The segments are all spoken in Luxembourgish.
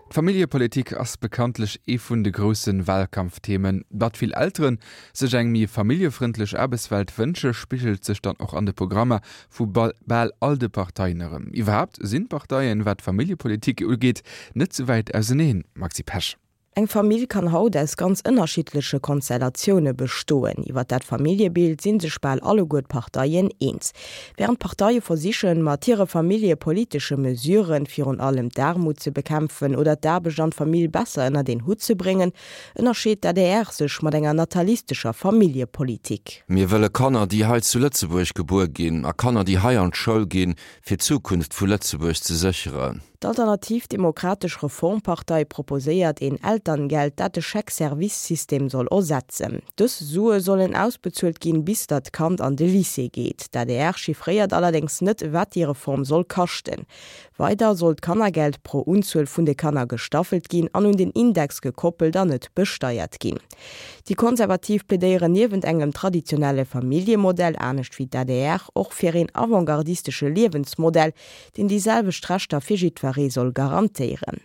D'Familljepolitik ass bekanntlech ee vun de grousse Wahlkampfthemen. Datt vill Elteren sech eng méi familljefrëndlech Aarbechtswelt wënsche, spigelt sech dann och an de Programmer vu bal all de Parteien erëm. Iwwerhaapt sinn d'Parteien, wat d'Familljepolitik ugeet, net sou wäit auseneen, Maxi Pesch. Eng Famill kann haut aus ganz ënnerschiddleche Konstellatioune bestoen. Iwwer dat Familljebild si sech bal alleguer d'Parteien eens. Wärend d'Parteie versichen, mat hire familljepolitesche Mesuren virun allem d'Aarmut ze bekämpfen oder d'Aarbecht an d'Famill besser ënnert een Hutt ze bréngen, ënnerscheet d'ADR sech mat enger natalistescher Familljepolitik. Mir wëlle Kanner, déi hei zu Lëtzebuerg gebuer ginn a Kanner, déi hei an d'Schoul ginn, fir d'Zukunft vu Lëtzebuerg ze sécheren. D'Alternativ Demokratesch Reformpartei proposéiert een Elterngeld, dat de Chèque-Service-System soll ersetzen. Dës Sue sollen ausbezuelt ginn, bis datt d'Kand an de Lycée geet. D'adr chiffréiert allerdéngs net, wat déi Reform soll kaschten. Weider soll d'Kannergeld pro Unzuel vun de Kanner gestaffelt ginn an un den Index gekoppelt an net besteiert ginn. Déi Konservativ plädéieren niewent engem traditionelle Familljemodell, anescht wéi d'ADR, och fir een avantgardistesche Liewensmodell, deen déi selwecht Rechter fir jiddweree soll garantéieren.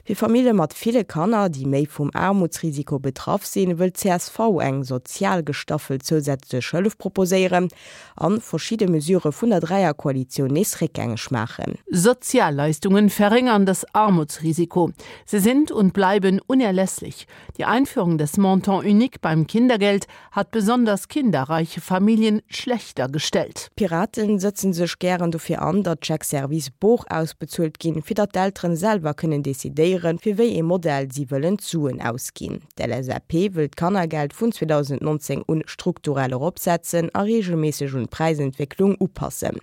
Fir Famille mat ville Kanner, déi méi vum Aarmutsrisiko betraff sinn, wëll d'CSV eng sozial gestaffelt zousätzlech Hëllef proposéieren an verschidde Mesurë vun der Dräierkoalitioun nees réckgängeg maachen. Sozialleistungen verringern das Armutsrisiko. Sie sind und bleiben unerlässlich. Die Einführung des Montant unique beim Kindergeld hat besonders kinderreiche Familien schlechter gestellt. D'Piraten sëtzen sech gären dofir an, datt d'Chèques-service bor ausbezuelt ginn, fir datt d'Elteren selwer kënnen decidéieren, fir wéi ee Modell si wëllen d'Suen ausginn. D'LSAP wëll d'Kannergeld vun 2019 un strukturell eropsetzen a reegelméisseg un d'Präisentwécklung upassen.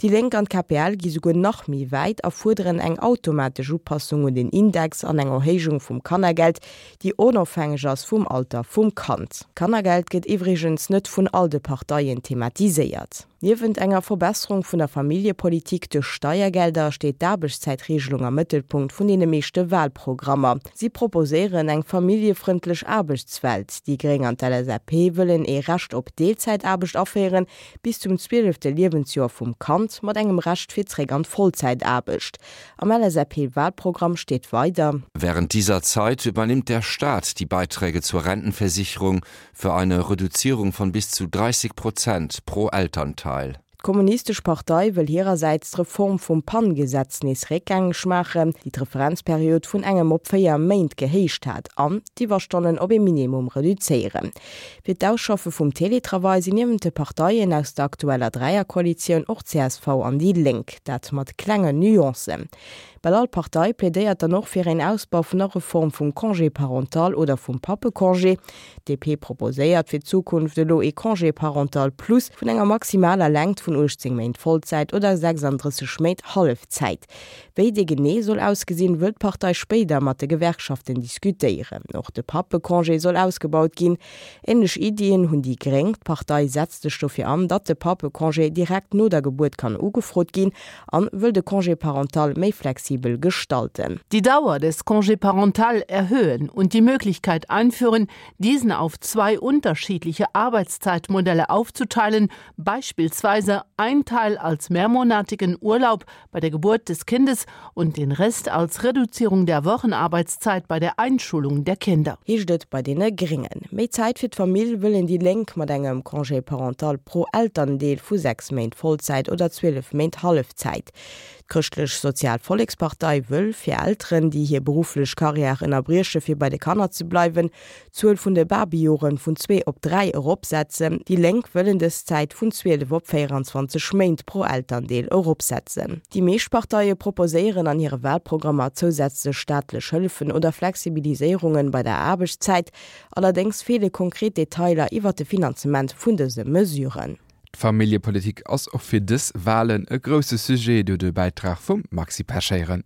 Déi Lénk an d'KPL gi souguer nach méi wäit a fuerderen eng automatesch Upassung un den Index an eng Erhéijung vum Kannergeld, déi onofhängeg ass vum Alter vum Kand. D'Kannergeld gëtt iwwregens net vun all de Parteien thematiséiert. Niewent enger Verbesserung vun der Familljepolitik duerch Steiergelder steet d'Aarbechtszäitregelung am Mëttelpunkt vun deene meeschte Wahlprogrammer. Si proposéieren eng familljefrëndlech Aarbechtswelt. Déi Gréng an d'LSAP wëllen ee Recht op Deelzäitaarbecht aféieren, bis zum zwielefte Liewensjoer vum Kand, mat engem Recht fir zréck an d'Vollzäitaarbecht. Am LSAP-Wahlprogramm steet weider. Während dieser Zeit übernimmt der Staat die Beiträge zur Rentenversicherung für eine Reduzierung von bis zu 30 Prozent pro Elternteil. D'Kommunistesch Partei wëll hirersäits d'Reform vum PAN-Gesetz nees réckgängeg maachen, déi d'Referenzperiod vun engem op 4 Méint gehéicht hat, an d'Iwwerstonnen op ee Minimum reduzéieren. Fir d'Ausschaffe vum Teletravail sinn niewent de Parteien aus der aktueller Dräierkoalitioun och csv an déi Lénk, dat mat klengen Nuancen. Bal all Partei plädéiert dann och fir een Ausbau vun der Reform vum Congé parental oder vum Pappecongé. D'DP proposéiert fir d'Zukunft elo ee Congé parental plus vun enger maximaler Längt vun 18 Méint Vollzäit oder 36 Méint Hallefzäit. Wéi dee genee soll ausgesinn, wëll d'Partei spéider mat de Gewerkschaften diskutéieren. Och de Pappecongé soll ausgebaut ginn. Änlech Iddien hunn déi Gréng. D'Partei setzt sech dofir an, datt de Pappecongé direkt no der Gebuert kann ugefrot ginn an wëll de Congé parental méi flexibel gestalten. Die Dauer des Congé parental erhöhen und die Möglichkeit einführen, diesen auf zwei unterschiedliche Arbeitszeitmodelle aufzuteilen, beispielsweise ein Teil als mehrmonatigen Urlaub bei der Geburt des Kindes und den Rest als Reduzierung der Wochenarbeitszeit bei der Einschulung der Kinder. Heescht et bei deene Gréngen. Méi Zäit fir d'Famill wëllen déi Lénk mat engem Congé parental pro Elterndeel vu 6 Méint Vollzäit oder 12 Méint Hallefzäit. D'Chrëschtlech Sozial Vollekspartei wëll fir Elteren, déi hir berufflech Karriär ënnerbrieche fir bei de Kanner ze bleiwen, d'Zuel vun de Babyjoren vun zwee op dräi eropsetzen. Déi Lénk wëllen dës Zäit vun 12 op 24 Méint pro Elterndeel eropsetzen. Déi meescht Parteie proposéieren an hire Walprogrammer zousätzlech staatlech Hëllefen oder Flexibiliséierungen bei der Aarbechtszäit. Allerdéngs feele konkret Detailer iwwer de Finanzement vun dëse Mesuren. D'Familljepolitik ass och fir dës Walen e grousse Sujet, do de Bäitrag vum Maxi Pesch héieren.